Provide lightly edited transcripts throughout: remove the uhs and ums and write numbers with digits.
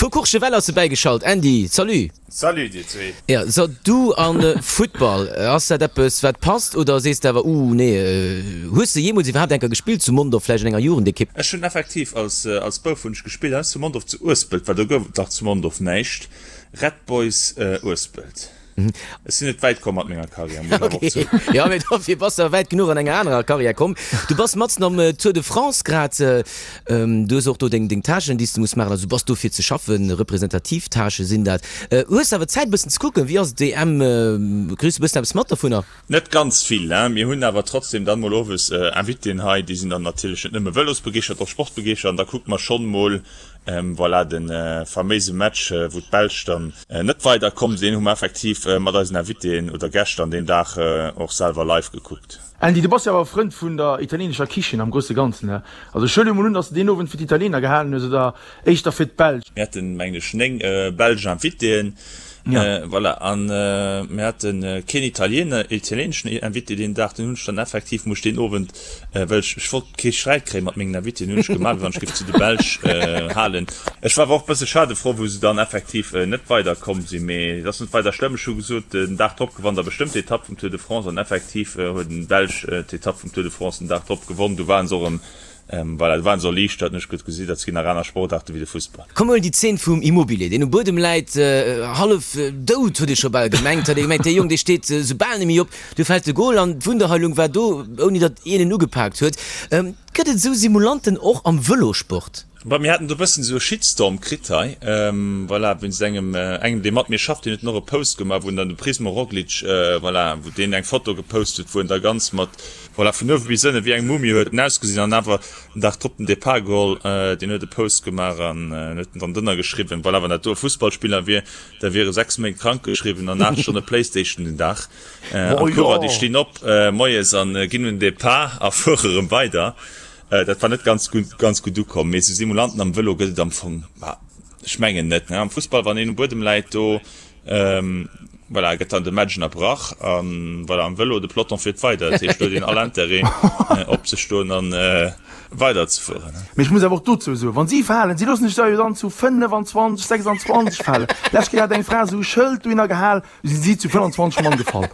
Vu Courchevel ass e bäigeschalt. Andy, salut! Salut dir zwee! Jo, so du an Futtball, ass dat eppes wat passt oder sees de awer uh nee? Hues de jeemools iwwerhaapt enker gespillt zu Mondorf, vläicht an enger Jugendekipp? Ech hunn effektiv als als Bouf hunn ech gespillt, hei zu Mondorf zu Uespelt, well do gouf et nach zu Mondorf näischt, Red Boys Uespelt. Ech sinn net wäit komm mat menger Karriär, muss ech awer och zouginn. Jo, mee dofir bass de awer wäit genuch an enger anerer Karriär komm. Du bass matzen am Tour de France grad. Du hues och do deng Tâchen, déi s de muss maachen. Also du bass do fir ze schaffen, representativ Tâchë sinn dat. Hues de awer Zäit e bëssen ze kucken? Wéi ass d'EM? Kriss de e bëssen eppes mat dovunner? Net ganz vill, hein. Mir hunn awer trotzdem dann mol owes Invitéen hei, déi sinn dann natierlech net nëmme Vëlosbegeeschtert, och Sportbegeeschtert an da kucke mer schonn mol, voilà, de faméise Match, wou d'Belsch dann net weider komm sinn, hu mer effektiv mat eisen Invitéen oder Gäscht an deem Dag och selwer live gekuckt. Andy, du bass jo awer Frënd vun der italienescher Kichen am grousse Ganzen, ne? Also ech huele mol un, dass de deen Owend fir d'Italiener gehalen hues oder éischter fir d'Belsch? Mir haten, mengen ech, 9 belsch Invitéen, voilà, an mir hate keen Italiener, italieneschen Invité deen Dag. Den hunn ech dann effektiv, muss ech deen Owend, well ech, ech wollt kee Sträit kréie mat mengen Invitéen, hunn ech gemaach, wéi wann ech géif zu de Belsch halen. Ech war awer och e bësse schadefrou, wou se dann effektiv net weider komm sinn, mee et ass net weider schlëmm. Ech hu gesot, den Dag drop gewannt der bestëmmt d'Etapp vum Tour de France an effektiv huet en Belsch d'Etapp vum Tour de France den Dag drop gewonn. Du waren se och erëm Voilà, do waren se erliichtert, hunn ech gutt gesi, dat ginn nach aner Sportaarte wéi de Fussball. Komm huel déi Zeen vum Immobile, deen um Buedem läit, hallef dout, huet ee scho bal gemengt, hat ee gemengt, dee Jong, dee steet sou bal net méi op. Du fält de Gol an d'Wunderheilung war do, ouni datt een en ugepaakt huet. Gëtt et esou Simulanten och am Vëlosport? Bon, mir haten do e bëssen esou e Shitstorm kritt hei, voilà, wéinst engem, engem dee mat mir schafft, deen huet dann och e Post gemaach, wou en dann de Primoz Roglic, voilà, wou deen eng Foto gepost huet, wou en da ganz mat, Voilà, vun uewe bis ënne wéi eng Mumie huet en ausgesinn an awer den Dag drop den Depart geholl. Deen huet e Post gemaach an huet en dann drënner geschriwwen, voilà, wann dat do e Fussballspiller wier, da wier e 6 Méint krank geschriwwen an 8 Stonne Playstation den Dag. An d'Coureur, déi stinn op moies an ginn un den Depart a fuere rëm weider. Dat war net ganz gutt, ganz gutt ukomm. Mee esou Simulanten am Vëlo gëtt et am Fong, ma ech mengen net, ne. Am Fussball, wann een um Buedem läit, do Voilà, gëtt dann de Match ënnerbrach an voilà, am Vëlo, de Peloton fiert weider. Dat heescht, do huet een all Intérêt opzestoen an weider ze fueren. Mee ech muss awer och dozou soen, wann si falen, si loossen sech da jo dann zu 25, 26 falen. Lescht Kéier hat eng Fra esou e Schëld dohinner gehal, du sinn si zu 25 Mann gefall.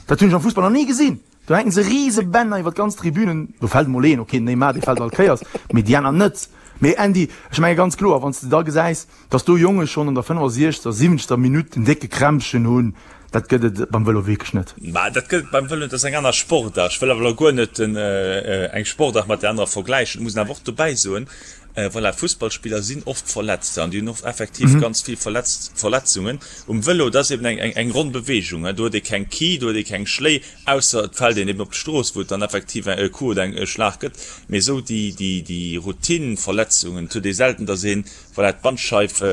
Dat hunn ech am Fussball nach ni gesinn. Do hänken se rise Bänner iwwer d'ganz Tribünen. Do fält emol een, ok, den Neymar, dee fält all Kéiers, mee déi aner net. Mee Andy, ech menge ganz kloer, wann s de da gesäis, Dass do Jonge schonn an der 65., 70. Minutt en décke Krämpchen hunn, dat gëtt et beim Vëlo wierklech net. Mä dat gëtt et beim Vëlo net, dat ass eng aner Sportaart. Ech wëll awer elo guer net eng Sportaart mat där anerer vergläichen. Et muss een awer och dobäi soen, voilà, Fussballspiller sinn oft verletzt an déi hunn oft effektiv ganz vill Verletzungen. Um Vëlo, dat ass eben eng ronn Beweegung, do huet ee keng Ki, do huet ee keng Schléi, ausser et fält een eben op d'Strooss, wou et dann effektiv e Coup oder e Schlag gëtt. Mee esou déi Routine-Verletzungen, et huet ee selten, dass een Voilà, d'Bandscheif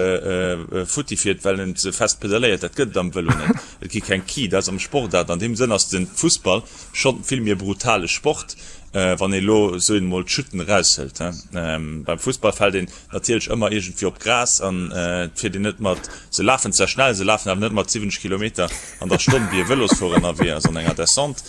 futti fiert, well en ze fest pedaléiert, dat gëtt et am Vëlo net. Et gi keng Ki, dat ass am Sport dat. An deem Sënn ass de Fussball schonn vill méi e brutale Sport, wann ee elo, soen emol, d'Chutten eraushëlt. Beim Fussball fält een natierlech ëmmer iergendwéi op d'Gras an et fiert een net mat, se lafen zwar schnell, se lafen awer net mat 70 Kilometer an der Stonn, wéi e Vëlosfuerer ënnerwee ass an enger Descente.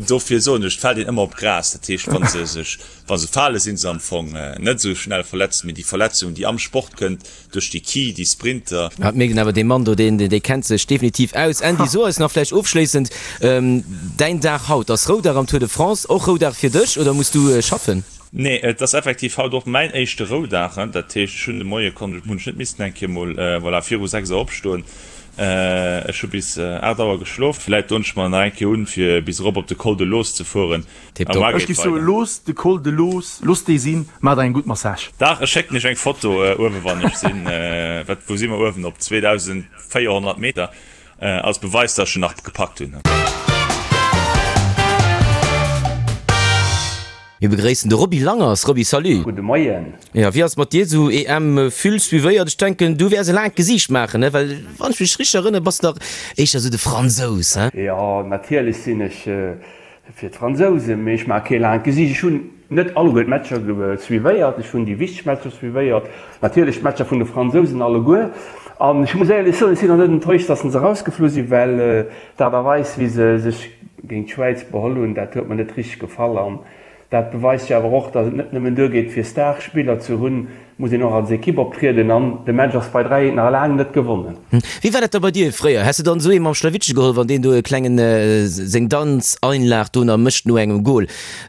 Dofir soen ech, et fält een ëmmer op d'Gras. Dat heescht, wa se sech Wa se fale si se am Fong net esou schnell verletzt, mee déi Verletzung, déi am Sport kënnt duerch déi Ki, déi Sprinter. Et mierkt een awer, dee Mann do, deen, dee kennt sech definitiv aus. Andy, so eis nach vläicht ofschléissend, däin Dag haut ass Roudag am Tour de France, och Roudag fir dech oder muss du schaffen? Nee, et ass effektiv haut och mäin éischte Roudag. Dat heescht, ech hunn de Moie konnt, hunn ech net missen eng Kéier mol, voilà, viru 6 Auer opstoen. Ech hu bis 8 Auer geschlof. Vläicht doen ech mer nach eng Kéier un, fir bis erop op de Col de Loos ze fueren. Tiptop. Ech giff soen, looss de Col de Loos, looss dee sinn, maach der eng gutt Massage. Dach, ech schécken iech eng Foto uewen wann ech sinn. Wat, wou si mer uewen? Op 2400 Meter, als Beweis dass ech en nach gepackt hunn. Mir begréissen de Roby Langers. Roby, salut. Gudde Moien. Jo, wéi ass et mat dir esou EM vill suivéiert? Ech denken du wäers e laangt Gesiicht maachen, ne? Well wann ech mech richteg erënnere bass de dach éischter esou de Fransous, he? Jo, natierlech sinn ech Fir d'Fransousen, mee ech maache kee laangt Gesiicht. Ech hunn net alleguer d'Matcher suivéiert, ech hunn déi wichteg Matcher suivéiert, natierlech d'Matcher vun de Fransousen alleguer. An ech muss éierlech soen, ech sinn och net enttäuscht, datt se erausgeflu sinn, well d'Aart a Weis, wéi se sech géint d'Schwäiz beholl hunn, dat huet mer net richteg gefall. Dat beweist jo awer och, datt et net nëmmen duergeet fir Starspiller ze hunn, muss een och als Ekipp optrieden an de Match ass bei 3 eent nach laang net gewonnen. Wéi war dat da bei dir fréier? Häss de dann esou ee mam Schlawittche geholl, wann deen do e klengen seng Danzeinlag do nach mécht no engem Goal?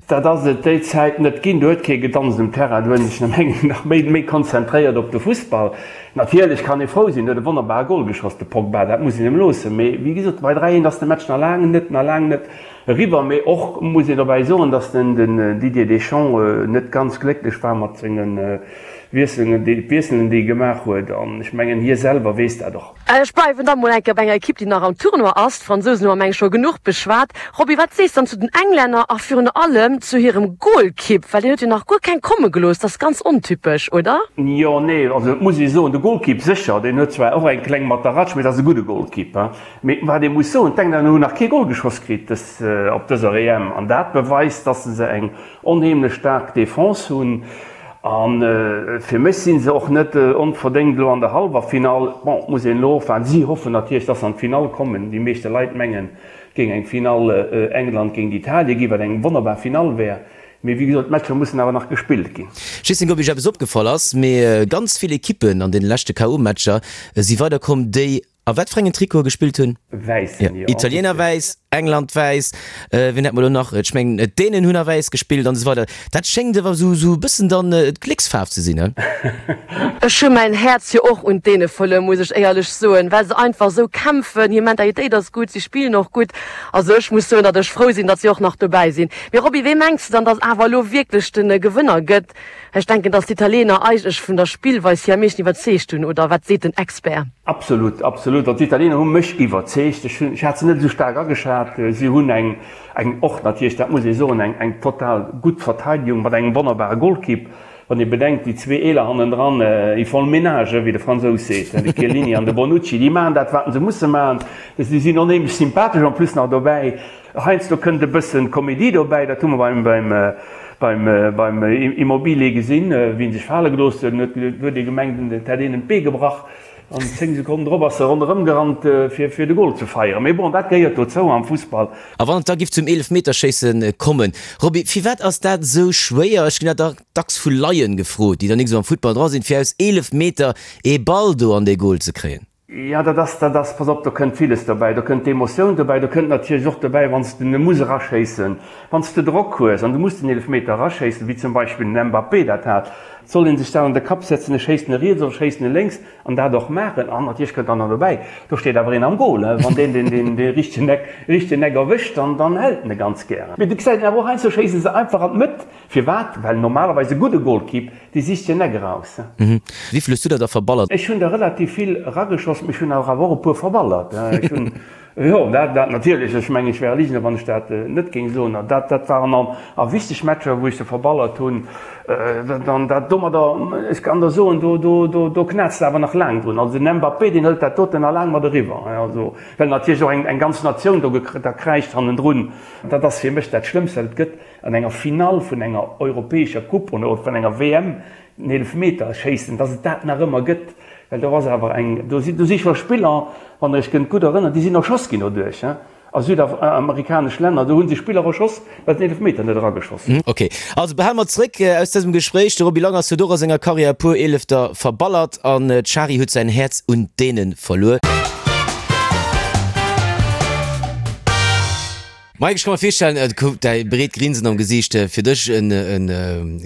Dat ass et déi Zäit net ginn. Do huet kee gedanzt um Terrain, do hunn sech nach méi méi konzentréiert op de Fussball. Natierlech kann ee frou sinn, huet e wonnerbare Goal geschoss de Pogba, dat muss een em loossen. Mee wéi gesot, bei 3 eent ass de Match nach laang net nach laang net Eriwwer, mee och muss een dobäi soen, datt den Didier Deschamps net ganz glécklech war mat senge Wiesselen, Wiesselen déi e gemaach huet an ech mengen hie selwer weess dat och. Ech bleiwen da mol eng Kéier bei enger Ekipp, déi nach am Tournoi ass. D'Fransousen hu mer meng ech scho genuch beschwat. Roby, wat sees dann zu den Englänner a virun allem zu hirem Golkipp, well deen huet jo nach guer keng komme gelooss. Dat ass ganz ontypesch, oder? Jo, nee, also et muss ee soen, de Golkipp sécher, deen huet zwar och eng kleng Mataratsch, mee et ass e gudde Golkipp. Mee wat ee muss soen, d'Englänner hunn nach kee Gol geschoss kritt dës op dëser EM an dat beweist, dass se eng onheemlech staark Defense hunn. A fir mech si se och net onverdéngt elo an der Hallwerfinall. Bon, et muss een elo ofwaarden. Si hoffen natierlech, dass se an d'Finall kommen. Déi meeschte Leit mengen, et géing eng Finall England géint Italien ginn, wat eng wonnerbar Finall wär. Mee wéi gesot, d'Matcher mussen awer nach gespillt ginn. Ech weess net, ob Iech eppes opgefall ass, mee ganz vill Ekippen an deene leschte KO-Matcher si weiderkomm, déi A wat fir engen Trikote gespillt hunn? Wäissen, jo. Italiener wäiss, England wäiss, wien hat mer elo nach? Ech mengen d'Dänen hunn a wäiss gespillt an esou weider. Dat schéngt ewer esou esou e bëssen dann d'Glécksfaarf ze sinn, he? Ech hu mäin Häerz jo och un d'Däne verluer, muss ech éierlech soen, well se einfach esou kämpfen, hir Mentalitéit ass gutt, si spillen och gutt. Also ech muss soen, datt ech frou sinn, datt si och nach dobäi sinn. Mee Roby, wee mengs de dann, datt awer elo wierklech de Gewënner gëtt? Ech denken, dass d'Italiener eigentlech vun der Spillweis hier am meeschten iwwerzeegt hunn, oder wat seet den Expert? Absolut, absolut. Also d'Italiener hu mech iwwerzeegt. Ech hunn, ech hat se net esou staark ageschat. Si hunn eng, eng och natierlech, dat muss ee soen, eng, eng total gutt Verteidigung mat engem wonnerbare Golkipp. Wann ee bedenkt, déi zwee Eeler hannendran, ils font le ménage, wéi de Fransous seet, de Chiellini an de Bonucci, déi maachen dat, wat se musse maachen. Si sinn onheemlech sympathesch en plus nach dobäi. Heiansdo kënnt e bëssen Komedie dobäi, dat hu mer beim Immobile gesinn, wéi en sech fale gelooss huet, huet huet ee gemengt, et hätt een em d'Bee gebrach an 10 Sekonnen drop ass e ronderëm gerannt fir de Gol ze feieren. Mee bon, dat gehéiert dozou am Fussball. A wann et da giff zum Eelefmeterschéisse kommen, Roby, firwat ass dat esou schwéier? Ech ginn dat dacks vu Laien gefrot, déi dann nik esou am Futtball dra sinn, fir aus 11 Meter ee Ball do an dee Gol ze kréien. Jo, dat ass, dat ass, pass op, do kënnt villes dobäi. Do kënnt d'Emotioun dobäi, do kënnt natierlech och dobäi, wann s de e muss eraschéissen, wann s de Drock hues an du muss den Eelefmeter eraschéissen, wéi zum Beispill den Mbappé dat hat, soll ee sech dat an de Kapp setzen, ech schéissen e riets oder ech schéissen e lénks an dat och maachen. An natierlech kënnt dann nach dobäi, do steet awer een am Gol, wann deen den, den, dee richtegen Eck, richtegen Eck erwëscht, dann, dann hält en e ganz gären. Mee du gesäis en awer och heiansdo schéisse se einfach an d'Mëtt. Firwat? Well normalerweis e gudde Golkipp, dee sicht hien Eck eraus. Wéivill hues du der da verballert? Ech hunn der relativ vill erageschoss, mee ech hunn awer och e puer verballert. Ech hunn, jo, dat, dat natierlech, ech mengen, ech wär e Ligner, wann ech dat net géing soen. Dat, dat waren an a wichteg Matcher, wou ech se verballert hunn. Dann dat domadder, ech kann der soen, do, do, do, do knätzt de awer nach laang drun. Also den Mbappé, deen hëlt dat doten nach laang mat eriwwer. Also, well natierlech och eng, eng ganz Natioun do da kräischt hannendrun. Dat ass fir mech dat Schlëmmst, wat et gëtt. An enger Finall vun enger europäescher Coupe oder vun enger WM den Eelefmeter schéissen, dass et dat nach ëmmer gëtt, well do ass awer eng, do si, do si scho Spiller, wann Der Iech kënnt gutt erënneren, déi sinn erschoss ginn doduerch, a südamerikanesch Länner, do hu se Spiller erschoss, well se den Eelefmeter net erageschoss hunn. Ok, also behale mer zréck aus dësem Gespréich, de Roby Langers huet och a senger Karriär e puer Eelefter verballert an d'Shari huet säin Häerz un d'Däne verluer. Mike, ech ka mer virstellen, et gouf däi breet Grinsen am Gesiicht, fir dech en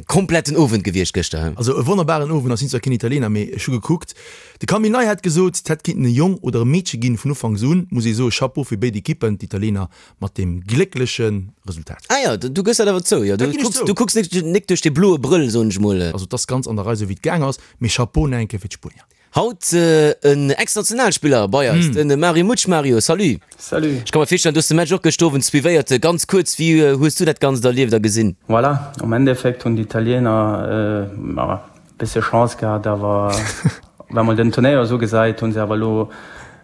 kompletten Owend gewiescht gëschter, he? Also e wonnerbaren Owend, ech sinn zwar keen Italiener, mee ech hu gekuckt. De Camille Ney hat gesot, et hätt kinnten e Jong oder e Meedche ginn vun Ufanks un, muss ee soe Chapeau fir béid Ekippen, d'Italiener mat deem gléckleche Resultat. Ah jo, du gëss dat awer zou, jo, du kucks, du kucks nik duerch dee bloe Brëll, soen ech mol. Also et ass ganz an der Rei esou wéi et gaang ass, mee Chapeau nach eng Kéier fir d'Spuenier. Haut en Ex-Nationalspiller bei eis, den Mario Mutsch. Mario, salut. Salut. Ech ka mer virstellen, du hues de Match och gëschter Owend suivéiert. Ganz kuerz, wéi hues du dat Ganzt erlieft a gesinn? Voilà, am Endeffekt hunn d'Italiener e bësse Chance gehat, awer wa mol den Turnéier esou gesäit, hu se awer elo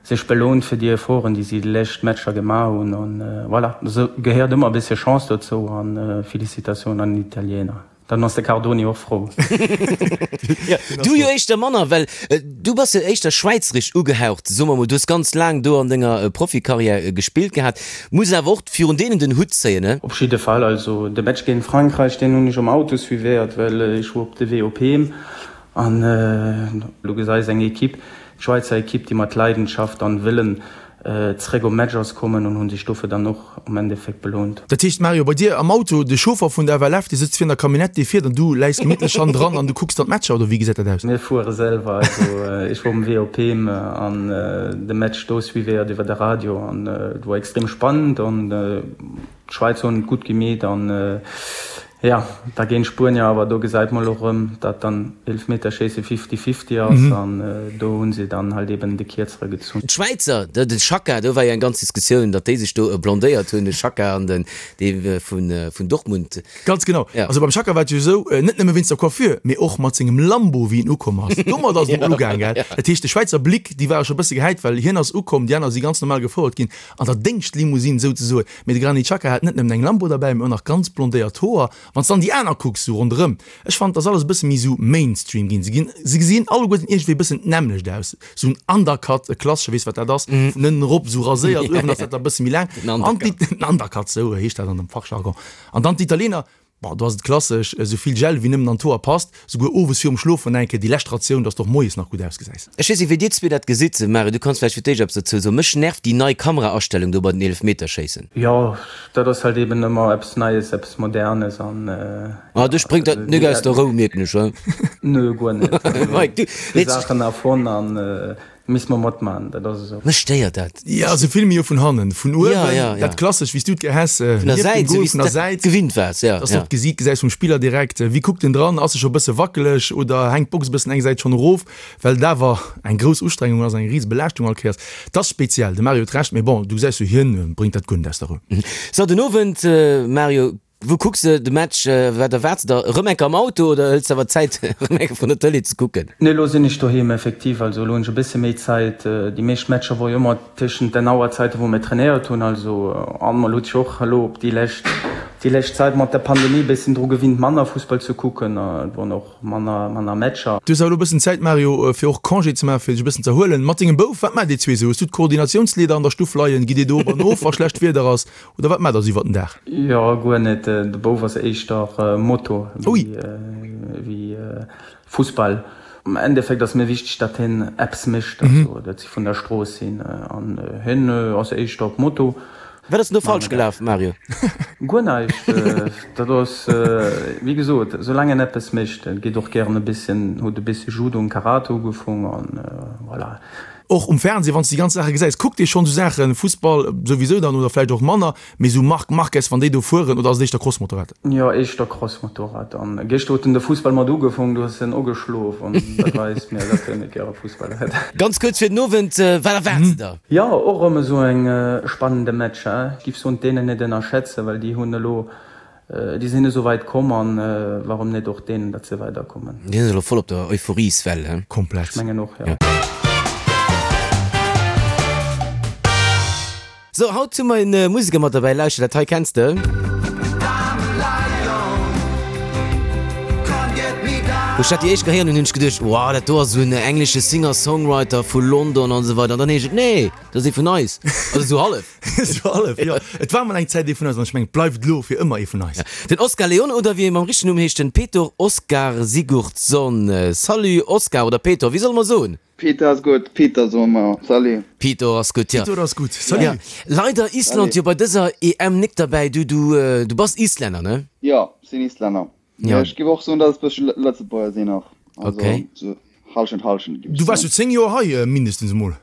sech belohnt fir déi Efforten, déi si déi lescht Matcher gemaach hunn. An voilà, esou gehéiert ëmmer e bësse Chance dozou an Félicitatiounen an den Italiener. Dann ass de Cardoni och frou. Du jo éischter manner, well du bass jo éischter schwäizerisch ugehaucht, soe mer mol. Du hues ganz laang do an denger Profikarriär gespillt gehat, muss awer och virun deenen den Hutt zéien, ne? Op jidde Fall. Also de Match géint Frankräich, deen hunn ech am Auto suivéiert, well ech wor op de Wee op heem. An du gesäis eng Equipe, d'Schwäizer Equipe, déi mat Leidenschaft an Wëllen zeréck op Match ass kommen an hunn sech dofir dann och am Endeffekt belount. Dat heescht Mario, bei dir am Auto, de Chauffer vun der FLF, dee sëtzt vir an der Camionnette, dee fiert an du läis gemittlech hannendran an du kucks dann d'Matcher, oder wéi gesäit dat aus? Mir fuere selwer, also ech wor um Wee op heem an de Match do suivéiert iwwer de Radio an et wor extrem spannend an d'Schwäizer hunn et gutt gemeet an Jo, da géint d'Spuenier, awer do gesäit mer elo rëm, dat dann Eelefmeterschéisse fifty-fifty ass an do hu se dann halt eben de Kierzere gezunn. D'Schwäizer, de Xhaka, do war jo eng ganz Diskussioun, datt déi sech do blondéiert hunn, de Xhaka an den dee vun Dortmund. Ganz genau. Also beim Xhaka war et jo esou, net nëmme wéinst der Coiffure, mee och mat sengem Lambo, wéi en ukomm ass. Domat ass et emol ugaang, gell. Dat heescht, de Schwäizer Blick, déi ware scho e bësse gehäit, well hien ass ukomm, déi aner si ganz normal gefouert ginn an der Déngschtlimousine souzesoen. Mee de Granit Xhaka hat net nëmmen eng Lambo derbäi, mee och nach ganz blondéiert Hoer. Wann s dann déi aner kucks, sou ronderëm, ech fannen, et ass alles e bësse méi sou Mainstream ginn. Se ginn, se gesinn alleguerten iergendwéi e bëssen d'nämmlecht aus. Sou en Undercut, e klassesche, weess wat dat ass, vun ënnen erop sou raséiert, uewen ass dat da e bësse méi laang. An déi, den Undercut, sou heescht dat an dem Fachjargon. An dann d'Italiener, Bon, do ass et klassesch, esou vill Gel wéi nëmmen an d'Hoer passt, souguer owes virum Schlofen eng Kéier déi lescht Ratioun, dass de och moies nach gutt ausgesäis. Ech weess net wéi dir zwee dat gesitt. Mario, du kanns vläicht fir d'éischt eppes dozou soen. Mech nervt déi nei Kameraastellung do bei den Eelefmeterschéissen. Jo, dat ass halt eben ëmmer eppes Neies, eppes Modernes an. Ah, dech bréngt dat nik aus der Rou, mierken ech, he? Nö, guer net. Mike, du, Déi Saachen erfonnt an Misst mer matman, dat ass esou. Mech stéiert dat. Jo, se filme jo vun hannen, vun uewen, dat klassesch, wéi s du et gär häss, Vun der Säit, esou wéi s du dat gewinnt waars, jo. Dass du och d'Gesiit gesäis vum Spiller direkt, wéi kuckt en dran, ass e scho bësse wackeleg oder hänkt d'Box e bëssen eng Säit schonn erof, well et awer eng grouss Ustrengung ass, eng rise Belaaschtung all Kéiers. Et ass speziell, de Mario huet Recht, mee bon, du gesäis jo, hien bréngt dat guer net aus der Rou. So, den Owend, Mario, Wou kucks de de Match? Wat erwaarts de der? Erëm enker am Auto oder hëls de awer Zäit erëm enker vrun der Tëlee ze kucken? Nee, elo sinn ech doheem effektiv. Also elo hunn ech e bësse méi Zäit. Déi meescht Matcher wor jo ëmmer tëschent den Auerzäiten, wou mir trainéiert hunn. Also an mer huet sech och elo op déi lescht déi lescht Zäit mat der Pandemie e bëssen dru gewinnt manner Fussball ze kucken. Et woren och manner manner Matcher. Du hues awer elo e bëssen Zäit Mario, fir och Congé ze maachen, fir dech e bëssen z'erhuelen. Mat dengem Bouf, wat maacht dir zwee esou? Hues du d'Koordinatiounsleeder an der Stuff leien? Gitt dir do op an of, wa schlecht Wieder ass? Oder wat maacht der sou iwwer den Dag? Jo, guer net. De Bouf ass éischter Moto wéi Fussball. Am Endeffekt ass mir wichteg, datt hien eppes mécht, also datt si vun der Strooss sinn. An hien ass éischter op Moto. Wat ass denn do falsch gelaf, Mario? Guer näischt. Dat ass, wéi gesot, soulaang en eppes mécht. En geet och gären e bësschen, huet e bëssche Judo an Karate ugefong an voilà. Och um Fernseh, wann s de déi ganz Saache gesäis, kuckt ee schonn esou Saachen, Fussball souwisou dann oder vläicht och manner, mee esou Marc Marquez, wann déi do fueren, oder ass et éischter Crossmotorrad? Jo, éischter Crossmotorrad. An gëschter huet en de Fussball mat ugefong, du hues en ugeschlof an dat weist mir, datt en net gäre Fussball huet. Ganz kuerz fir den Owend, wat erwaarts de der? Jo, och erëm esou eng spannende Match. Ech giff soen, d'Dänen net ënnerschätzen, well déi hunn elo Déi sinn esou weit komm an warum net och deenen, datt se weider kommen. Déi sinn elo voll op der Euphorieswell, he? Komplett. Ech mengen och, jo. So, haut hu mer en Museker mat derbäi. Lauschter, dat hei kenns de. Wou ech dat déi éischt gehéieren hunn, hunn ech geduecht, wow, dat do ass esou en englesche Singer-Songwriter vu London an esou weider. An dann heescht et, nee, dat ass ee vun eis. Also esou hallef. Esou hallef, jo. Et war mol eng Zäit ee vun eis an ech mengen, et bleift elo fir ëmmer ee vun eis. Den Oscar Leone oder wéi e mam richtegen Numm heescht, den Petur Oskar Sigurdsson. Salut Oscar oder Peter, wéi solle mer soen? Peter ass gutt, Peter soe mer. Salut. Peter ass gutt, jo. Peter ass gutt, salut. Ja, leider Island jo bei dëser EM nik derbäi. Du, du, du bass Islänner, ne? Jo, sinn Islänner. Ja. Ech géif och soen, datt ech bëssche Lëtzebuerger sinn och. Also Okay. sou Hallschent, Hallschent géif Du ech waars soen. jo 10 Joer hei mindestens emol.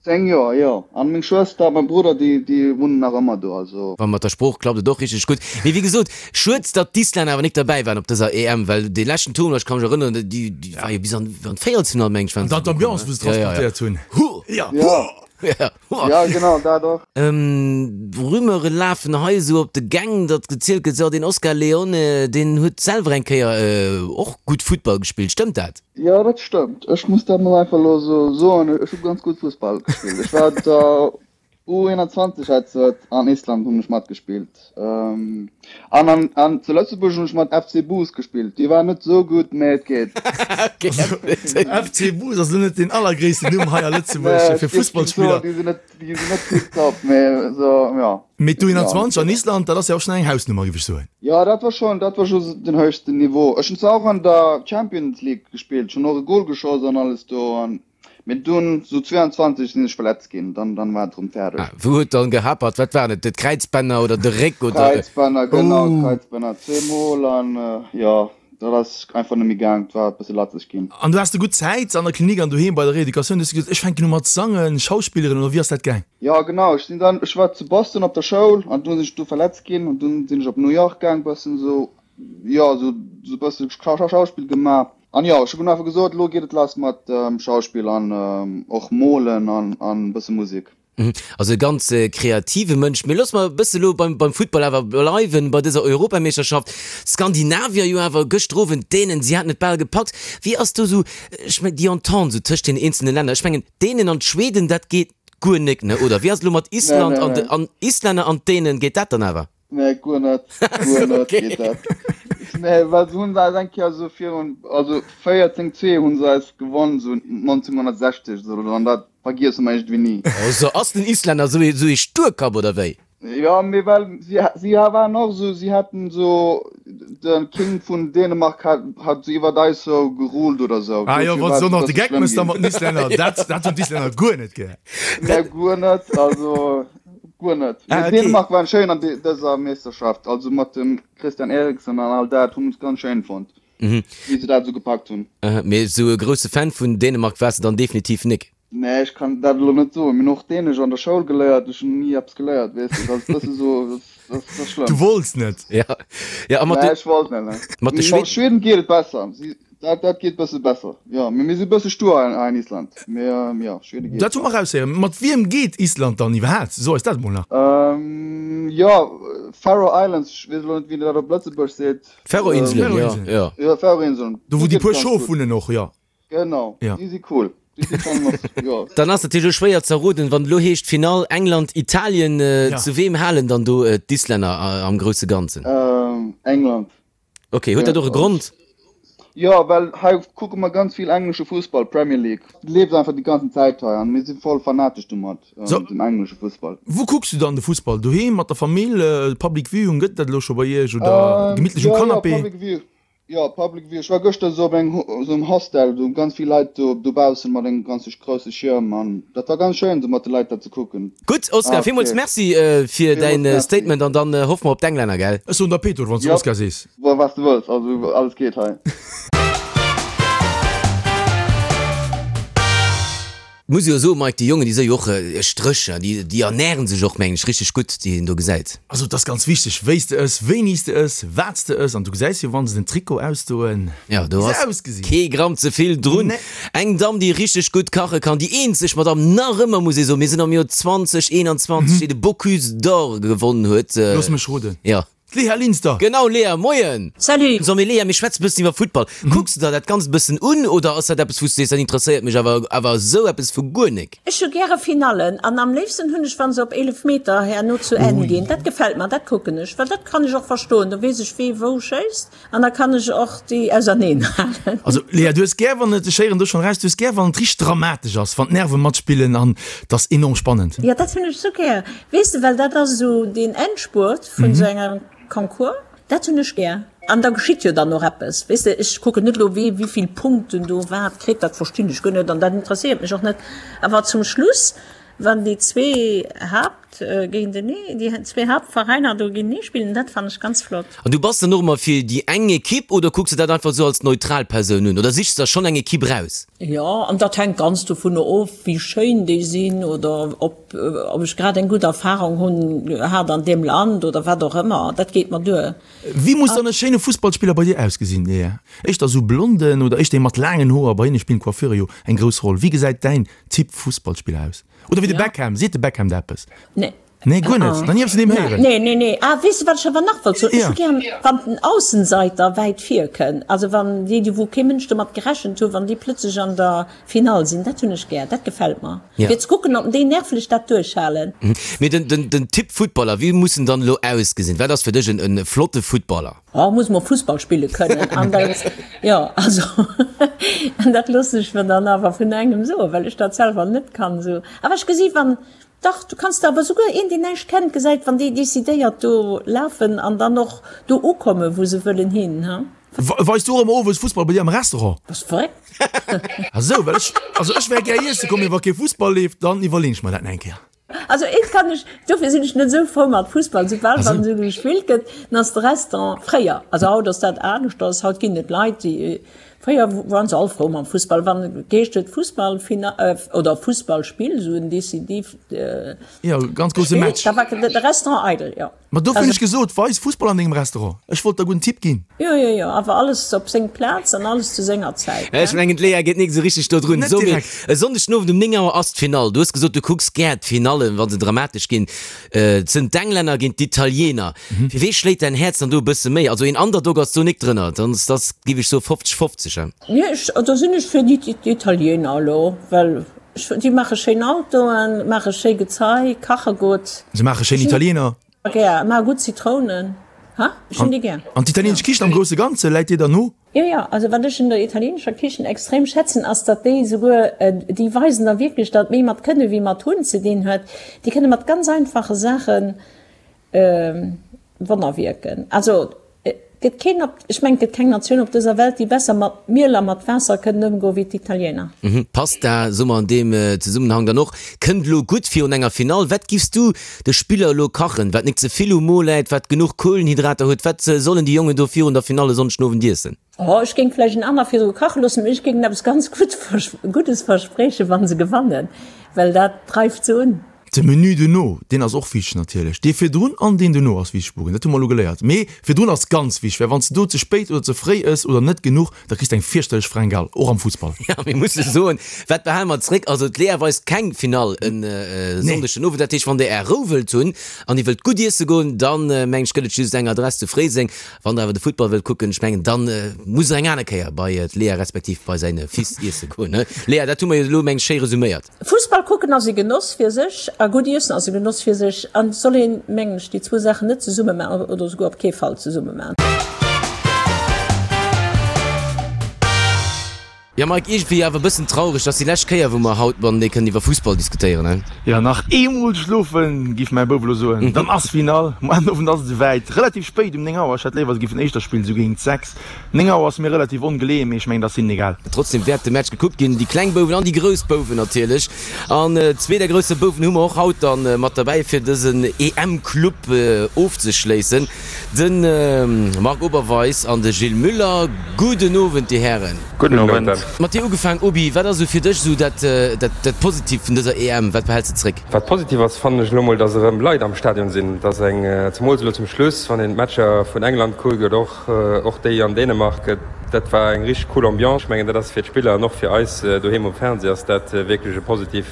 10 Joer, jo. An meng Schwëster a mäi Brudder, déi, déi wunnen nach ëmmer do, also. Wa mat der Sprooch klappt et och richteg gutt. Mee wéi gesot, schued, datt d'Islänner awer nik derbäi waren op dëser EM, well dee leschten Tournoi, ech ka mech erënneren, déi, déi war jo bis an, an d'Véierelsfinall, meng ech, waren An se dann gekomm, d'Ambiance, ne? wou se Ja, ja, ja. transportéiert hunn. Huh! Ja. Ja. Ja. Ja, genau, dat och. Rumeure lafen hei esou op de Gäng, datt gezielt gëtt, jo deen Oscar Leone, deen huet selwer eng Kéier och gutt Futtball gespillt. Stëmmt dat? Jo, dat stëmmt. Ech muss dat mol einfach elo esou soen, ech hu ganz gutt Fussball gespillt. Ech war der. U21 hat se an Island hunn ech matgespillt. An an an zu Lëtzebuerg hunn ech mat FC Boos gespillt. Déi waren net esou gutt, mä et geet. FC Boos ass elo net deen allergréissten Numm hei a Lëtzebuerg fir Fussballspiller. Déi sinn net, déi sinn net tiptop, mä esou, jo. Mee d'U21 an Island, dat ass jo och schonn eng Hausnummer, géif ech soen. Jo, dat war schonn, dat war scho den héchsten Niveau. Ech hunn zwar och an der Champions League gespillt, ech hunn och e Gol geschoss an alles do an Mee dunn sou 22 sinn ech verletzt ginn, dann dann war et rëm fäerdeg. Ah, wou huet dann gehapert? Wat waren et, d'Kräizbänner oder de Réck oder? Kräizbänner, genau, d'Kräizbänner zweemol an jo, dat ass einfach net méi gaang, et war e bësse latzeg ginn. An du has de gutt Zäit an der Klinik an doheem bei der Reeducatioun, du hues gesot, ech fänken u mat sangen, schauspilleren oder wéi ass dat gaang? Jo, genau, ech sinn dann, ech war zu Boston op der Schoul an dunn sinn ech do verletzt ginn an dunn sinn ech op New York gaang, bëssen sou, jo, sou sou bësse Schauspill gemaach. An jo, ech hunn einfach gesot, elo geet et lass mat Schauspill an och molen an e bësse Musek. Also e ganz kreative Mënsch. Mee loosse mer e bësse lo beim Futtball awer bleiwen, bei dëser Europameeschterschaft. D'Skandinavier jo awer gëschter Owend, d'Dänen, si haten et bal gepackt. Wéi ass do sou, ech mengen, déi Entente sou tëscht den eenzelne Länner? Ech mengen, d'Dänen an d'Schweden, dat geet guer nek, ne, oder? Wéi ass et elo mat Island an de, an Islänner an d'Dänen, geet dat dann awer? Nee, guer net. Guer net geet dat. Nee, well se hunn se eis eng Kéier esou virun, also 14, 2 hunn se eis gewonn, esou 1960 esou, oder an dat vergiesse mer iergendwéi ni. Also ass den Islänner esou ee, esou ee Sturkapp, oder wéi? Jo, mee well si, si waren och esou, si haten esou, de King vun Dänemark hat, hat esou iwwert eis esou geruled oder esou. Ah jo, Dofir wann war se et och nach e de bësse Geck schlëmm mëss da ginn. mat den Islänner, dat, dat hunn d'Islänner guer net gär. Nee, guer net, also. Guer net. Ah, Mee okay. Dänemark waren schéin an dëser Meeschterschaft, also mat dem Christian Eriksen an all dat, hunn ech ganz schéin fonnt, wéi se dat esou gepackt hunn. Mee esou e grousse Fan vun Dänemark waars de dann definitiv nik? Nee, ech kann dat elo net soen. Mir hunn och Dänesch an der Schoul geléiert, ech hunn ni eppes geléiert, weess de. Dat ass e bësse sou, dat ass schlëmm. Du wollts net? Ja, ja, a mat Nee, de. ech wollt net, nee. Mat de Mat Schweden. Schweden geet et besser. Si Dat, dat geet bësse besser, jo. Mee mir si bësse stur hei an Island. Mee jo, Schwede geet Dat hu mer eraushéieren. Mat wiem geet Island dann iwwerhaapt? So eis dat emol nach. Jo, Faroe Islands, ech weess elo net, wéi een dat op Lëtzebuerg seet. Färöer-Inselen, jo, jo. Jo, Färöer-Inseln. Do wou déi puer Schof wunnen och, jo. Genau, déi si cool. Déi si schonn mat, jo. Dann ass natierlech elo schwéier ze erroden, wann et elo heescht Finall England-Italien, zu weem halen dann do d'Islänner am grousse Ganzen? England. Ok, huet dat och e Grond? Jo, well hei kucke mer ganz vill englesche Fussball, Premier League leeft einfach déi ganzen Zäit hei an mir si voll fanatesch domat, dem englesche Fussball. Wou kucks du dann de Fussball? Doheem mat der Famill? Public Viewing, gëtt et dat elo scho bei iech oder gemittlech um Jo, jo, Canapé? Public View, jo, Public View. Ech war gëschter esou op engem esou engem Hostel, do ganz vill Leit do dobaussen mat engem ganze grousse Schierm an dat war ganz schéin esou mat de Leit dat ze kucken. Gutt Oscar, villmools Merci fir däin Statement an dann hoffe mer op d'Englänner, gell? Ech soen der Peter, wann s du Oscar sees. Jo, wat s de wëlls, also alles geet hei. Muss jo soen, Mike, déi Jongen, déi si jo och Stréch, déi déi ernären sech och, mengen ech, richteg gutt, déi een do gesäit. Also et ass ganz wichteg, wéi s de ëss, wéini s de ëss, wat s de ëss an du gesäis jo, wann se den Trikot ausdoen, Jo, do wéi se ass ausgesinn. kee Gramm ze vill drun. Nee. Eng Damm, déi richteg gutt kache kann, déi eenzeg Madamm nach ëmmer, muss ee soen, mir sinn am Joer 2021, déi de Bocuse d'Or gewonnen huet. Looss mech roden. Jo. D'Léa Linster! Genau, Léa, moien! Salut! So, mee Léa, mir schwätzen e bëssen iwwer Futtball. Kucks de der dat Ganzt e bëssen un oder ass dat eppes, wou s du sees, dat interesséiert mech awer, awer esou eppes vu guer nik? Ech hu gäre Finallen an am léifsten hunn ech, wa se op Eelefmeter herno zu Enn ginn. Dat gefält mer, dat kucken ech, well dat kann ech och verstoen. Do weess ech, wee wou schéisst. An da kann ech och déi auserneen halen. Also Léa, du hues gär wann et, ech héieren do schonn eraus, du hues gär wann et richteg dramatesch ass, wann d'Nerve matspillen an et ass enorm spannend. Jo, dat hunn ech sou gär, weess de, well dat ass esou deen Endspurt vun esou engem Concours, dat hunn ech gär. An da geschitt jo dann och eppes, weess de, ech kucken net elo wee wéivill Punkten do wat kritt, dat verstinn ech guer net an dat interesséiert mech och net, awer zum Schluss, wann déi zwee Haapt géintenee, déi zwee Haaptveräiner do géintenee spillen, dat fannen ech ganz flott. An du bass dann och ëmmer fir déi eng Ekipp oder kucks de dat einfach esou als neutral Persoun un oder sichs der schonn eng Ekipp raus? Jo, an dat hänkt ganz dovunner of, wéi schéin déi sinn oder ob ob ech grad eng gutt Erfarung hunn hat an deem Land oder wat och ëmmer. Dat geet mer duer. Wéi muss dann e schéine Fussballspiller bei dir ausgesinn, Léa? Éischter esou blonden oder éischter ee mat laangen Hoer? Bei hinne spillen d'Coiffure jo eng grouss Roll. Wéi gesäit däin Typ Fussballspiller aus? Oder wéi de Beckham, seet de Beckham der eppes? Nee. Nee, guer net. Nach ni eppes vun deem héieren. Nee, nee, nee. Ah, weess de, wat ech awer nach wollt soen? Ech hu gär, wann den Aussenseiter wäit vir kënn. Also wann déi, déi wou kee Mënsch domat gerechent hu, wann déi plötzlech an der Finall sinn. Dat hunn ech gär. Dat gefält mer. Fir ze kucken, ob déi nervlech dat duerchhalen. Mee den, den, den Typ Futtballer, wéi muss en dann elo ausgesinn? Wat ass fir dech en, en flotte Futtballer? Oh, muss mol Fussball spille kënnen. An dat, jo, also, an dat loossen ech mer dann awer vun engem soen, well ech dat selwer net kann esou. Awer ech gesi wann, Dach, du kanns der awer souguer een, deen näischt kennt, gesäit, wann déi decidéiert do lafen an dann och do ukommen, wou se wëllen hin, ha? Weis du och ëmmer owes Fussball bei dir am Restaurant? Bass verréckt? Ah sou, well ech, also ech wär gär iesse komm, mee wa kee Fussball leeft, dann iwwerleen ech mer dat nach eng Kéier. Also eent kann ech, dofir sinn ech net esou frou mat Fussball, soubal wann esou gespillt gëtt, dann ass de Restaurant, fréier, also haut ass dat aneschters, haut ginn et Leit, déi Fréier waren se all frou mam Fussball, wann geheescht huet Fussballfina oder Fussballspill, esou en décisiivt Jo, ganz grousse Spill, Match. da war de Restaurant eidel, jo. Ma dofir hunn ech gesot, weis Fussball an dengem Restaurant. Ech wollt der gudden Tipp ginn. Jo, jo, jo, awer alles op seng Plaz an alles zu senger Zäit, Ech ne? mengen, d'Léa geet nik esou richteg do drun. Net So, mee direkt. e Sonndeg den Owend um 9 Auer ass d'Finall. Du hues gesot, du kucks gär d'Finallen, wa se dramatesch ginn. Et sënn d'Englänner géint d'Italiener. Fir wee schléit däin Häerz dann do e bësse méi? Also een Underdog ass do nik drënner, dann ass dass, giff ech soen, 50, 50, he? Nee, ech, do sinn ech fir d'Italiener elo, well ech, déi maache schéin Autoen, maache schéi Gezei, kache gutt. Se maache schéin Italiener. Gär, maache gutt Zitrounen, ha? Ech hunn déi gär. An d'italienesch Kichen am grousse Ganze läit dir dann no? Jo, jo, also wat ech un der italienescher Kichen extrem schätzen, ass, datt déi souguer, déi weisen da wierklech, datt méi mat Kënne wéi mat Hunn ze dinn huet. Déi kënne mat ganz einfache Saache Wonner wierken. Also et gëtt keen op, ech mengen, et gëtt keng Natioun op dëser Welt, déi besser mat Miel a mat Waasser kënnen ëmgoen wéi d'Italiener. Pasta, soe mer an deem Zesummenhang dann och, kënnt elo gutt virun enger Finall. Wat giffs du de Spiller elo kachen, wat nik ze vill um Mo läit, wat genuch Kohlenhydrater huet? Wat sollen déi Jongen do virun der Finall e Sonndeg den Owend iessen? Oh, ech géing vläicht en aner virdru kache loossen, mee ech géing eppes ganz Guddes verspriechen, wa se gewannen, well dat dreift se un. De Menü dono, deen ass och wichteg natierlech. Dee virdrun an deen dono ass wichteg, Bugen, dat hu mer elo geléiert. Mee virdrun ass ganz wichteg, well wann s de do ze spéit oder ze fréi ëss oder net genuch, da kriss de eng fierchterlech Fringale, och am Fussball. Jo, mir musse soen, wat behale mer zréck? Also d'Lea weist keng Finall e Sonndeg den Owend. Dat heescht, wann der Är Rou wëllt hunn an Dir wëllt gutt iesse goen, dann mengen ech gëtt et just eng Adress zu Fréiseng. Wann der awer de Futtball wëllt kucken, ech mengen, dann musst der eng aner Kéier bei d'Lea respektiv bei säin Fils iesse goen. Lea, dat hu mer jo elo mengen ech schéi resuméiert. Fussball kucken ass e Genoss fir sech a gutt iessen ass e Genoss fir sech an et soll een, mengen ech, déi zwou Saachen net zesumme maachen oder esouguer op kee Fall zesumme maachen. Jo Mike, iergendwéi awer e bëssen traureg, dass déi lescht Kéier wou mer haut matenee kënnen iwwer Fussball diskutéieren, he? Jo, nach eemol schlofen, giff mäi Bouf elo soen, dann ass Finall. Muer den Owend ass et esouwäit, relativ spéit, um 9 Auer. Ech hätt léiwer, se giffen éischter spillen, esou géint 6. 9 Auer ass mir relativ ongeleeën, mee ech mengen, dat ass hinnen egal. Trotzdem wäert de Match gekuckt ginn, déi kleng Bouwen an déi grouss Bouwen natierlech. An zwee der grousse Bouwen hu mer och haut dann mat derbäi fir dësen EM-Club ofzeschléissen, de Marc Oberweis an de Gilles Muller. Gudden Owend, Dir Hären. Gudden Owend. Mat dir ugefaang, Obi, wat ass esou fir dech esou dat dat Positiivt vun dëser EM? Wat behäls de zréck? Wat positiv ass, fannen ech elo mol, dass erëm Leit am Stadion sinn, dass eng, zemools elo zum Schluss, wann een d'Matcher vun England kuckt oder och och déi an Dänemark, dat war eng richteg cool Ambiance. Ech mengen, dat ass fir d'Spiller an och fir eis doheem um Fernseh ass dat wierklech e positiv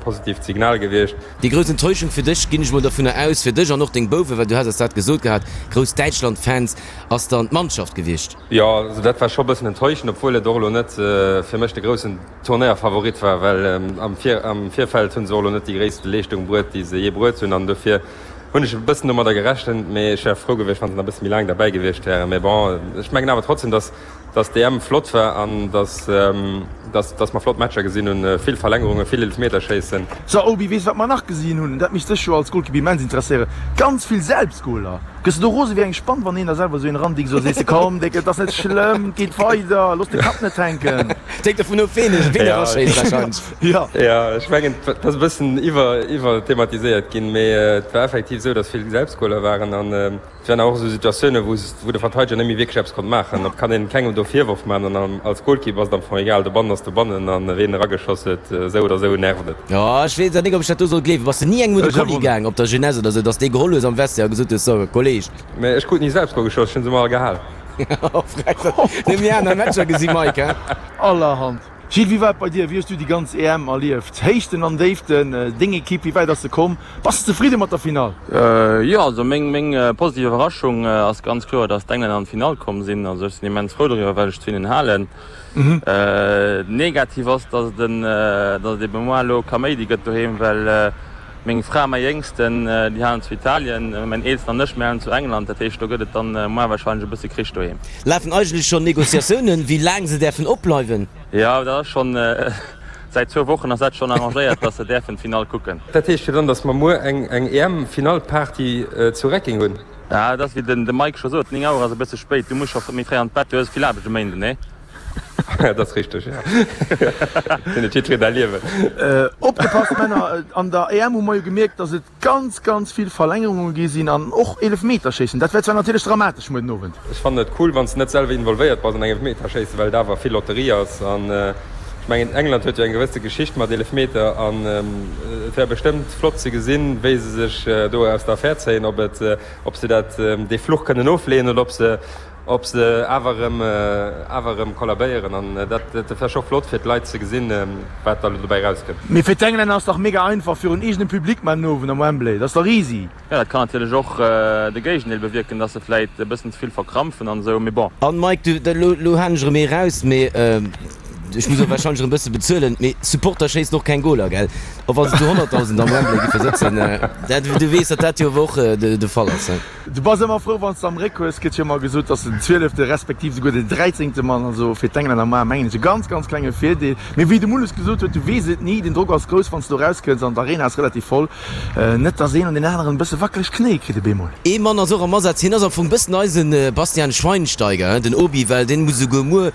positiivt Signal gewiescht. Déi grouss Enttäuschung fir dech, ginn ech mol dovunner aus, fir dech an och deng Bouwen, well du has eis dat gesot gehat, grouss Däitschland-Fans, ass dann d'Mannschaft gewiescht. Jo, also dat war scho bëssen enttäuschend, obwuel et och elo net fir mech de groussen Turnéierfavorit war, well am Virfeld hu se och elo net déi gréisste Leeschtung bruet, déi se jee bruet hunn an dofir hunn ech e bëssen domadder gerechent, mee ech wär frou gewiescht, wann se nach e bësse méi laang derbäi gewiescht wären. Mee bon, ech mengen awer trotzdem, dass dass d'EM flott war an dass dass dass mer flott Matcher gesinn hunn, vill Verlängerungen, vill Eelefmeterschéissen. So Obi, weess wat mer nach gesinn hunn? Dat misst dech jo als Golkipp immens interesséieren, ganz vill Selbstgoler. Gëss de do rose wéi eng Spann, wann een der selwer esou een erandickt, esou sees de, komm Déck, et ass net schlëmm, et geet weider, looss de Kapp net hänken. Et hänkt dovun of, ween ween eraschéisst wahrscheinlech. Jo. Jo, ech mengen, et ass e bëssen iwwer iwwerthematiséiert ginn, mee et war effektiv esou, dass vill Selbstgoler waren an et waren och esou Situatiounen, wou wou de Verteideger net méi wierklech eppes konnt maachen. Et kann een kengem do Virworf maachen an als Golkipp ass et am Fong egal, dobannen ass dobannen an ween erageschoss huet, esou oder esou nervt et. Jo, ech weess awer nik, ob ech dat do soll gleewen. Bass de ni engem un de Kolli gaang op der Jeunesse oder sou, dass dee geholl hues am Vestiaire a gesot hues, So, Kolleg. Mee ech krut ni selbst Goal geschoss, ech hunn se emmer all gehal. Nëmmen déi aner Matcher gesi, Mike, he? Allerhand. Gilles, wéi war et bei dir? Wéi hues du déi ganz EM erlieft? Héichten an Déiften, deng Ekipp, wéi wäit ass se komm? Bass de zefridde mat der Finall? Jo, also meng meng positiv Iwwerraschung ass ganz kloer, datt d'Englänner an d'Finall komm sinn. Also ech sinn immens frou doriwwer, well ech zu hinnen halen. Negativ ass, datt et en datt et ebe moar elo Kaméidi gëtt doheem, well meng Fra, mäi Jéngsten, déi halen zu Italien, mäin Eelsten an ech, mir halen zu England. Dat heescht, do gëtt et dann moar warscheinlech e bësse Krich doheem. Lafen eigentlech schonn Negociatiounen, wéi laang se däerfen opbleiwen? Jo, dat ass schonn, säit zwou Wochen ass dat schonn arrangéiert, datt se däerfen d'Finall kucken. Dat heescht jo dann, datt mer muer eng EM-Finallparty zu Recking hunn? Ja, et ass wéi den Mike scho sot, 9 Auer ass e bësse spéit, du muss scho méi fréi an d'Bett, du hues vill Aarbecht um Méinden, nee? Dat ass richteg, jo. Fir net jiddwereen däi Liewen. Opgepasst Männer, an der EM hu mer jo gemierkt, datt et ganz, ganz vill Verlängerunge gi sinn an och Eelefmeterschéissen. Dat wär zwar natierlech dramatesch muer den Owend. Ech fannen et cool, wann s de net selwer involvéiert bass an engem Eelefmeterschéissen, well et awer vill Lotterie ass. An ech mengen, England huet jo eng gewësse Geschicht mat Eelefmeter an et wär bestëmmt flott ze gesinn, wéi se sech do aus der Affär zéien, ob et, ob se dat, dee Fluch kënnen ofleeën oder ob se, Ob se awer erëm awer erëm kollabéieren an dat dat wär scho flott fir d'Leit ze gesinn, wat da lo dobäi rauskënnt. Mee fir d'Englänner ass dach mega einfach virun eegenem Public mar den Owend am Wembley, dat ass dach easy. Jo, dat kann natierlech och de Géigendeel bewierken, dass se vläit e bëssen ze vill verkrampfen an esou, mee bon. An Mike, du, elo elo halen ech erëm ee raus, mee ech muss och wahrscheinlech erëm bësse bezuelen, mee Supporter schéissen och keng Goler, gell? Och wa se zu 100.000 am Wembley giffe sëtzen, dat, du weess, datt dat jo awer och de Fall ass, he? Du bass ëmmer frou wanns de am Réck hues, gëtt jo ëmmer gesot, dass den zwielefte respektiv souguer den dräizéngte Mann, also fir d'Englänner mar mengen ech e ganz ganz klenge Virdeel. Mee wéi de Mulles gesot huet, du weess et ni, den Drock ass grouss wanns de do rauskënns an d'Arena ass relativ voll, net dass een an deen aneren e bësse wackeleg Knéie kritt op eemol. Ee Mann ass och am Asaz, hien ass am Fong bëssen eise Bastian Schweinsteiger, den Obi, well deen muss esouguer muer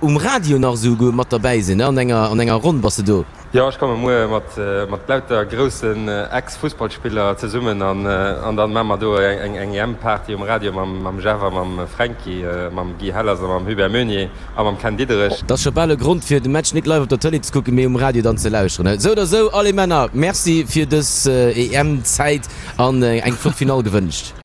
um Radio nach esouguer mat derbäi sinn, an enger an enger Ronn bass de do. Jo, ech komme muer mat mat lauter groussen Ex-Fussballspiller zesummen an an dann maache mer do eng eng EM-Party um Radio mam mam Jeff a mam Fränki, mam Guy Hellers a mam Hubert Meunier a mam Ken Diederich. Dat ass scho bal e Grond fir de Match net live op der Tëlee ze kucken, mee um Radio dann ze lauschteren. Esou oder esou, allez Männer, Merci fir dës EM-Zäit an eng flott Finall gewënscht.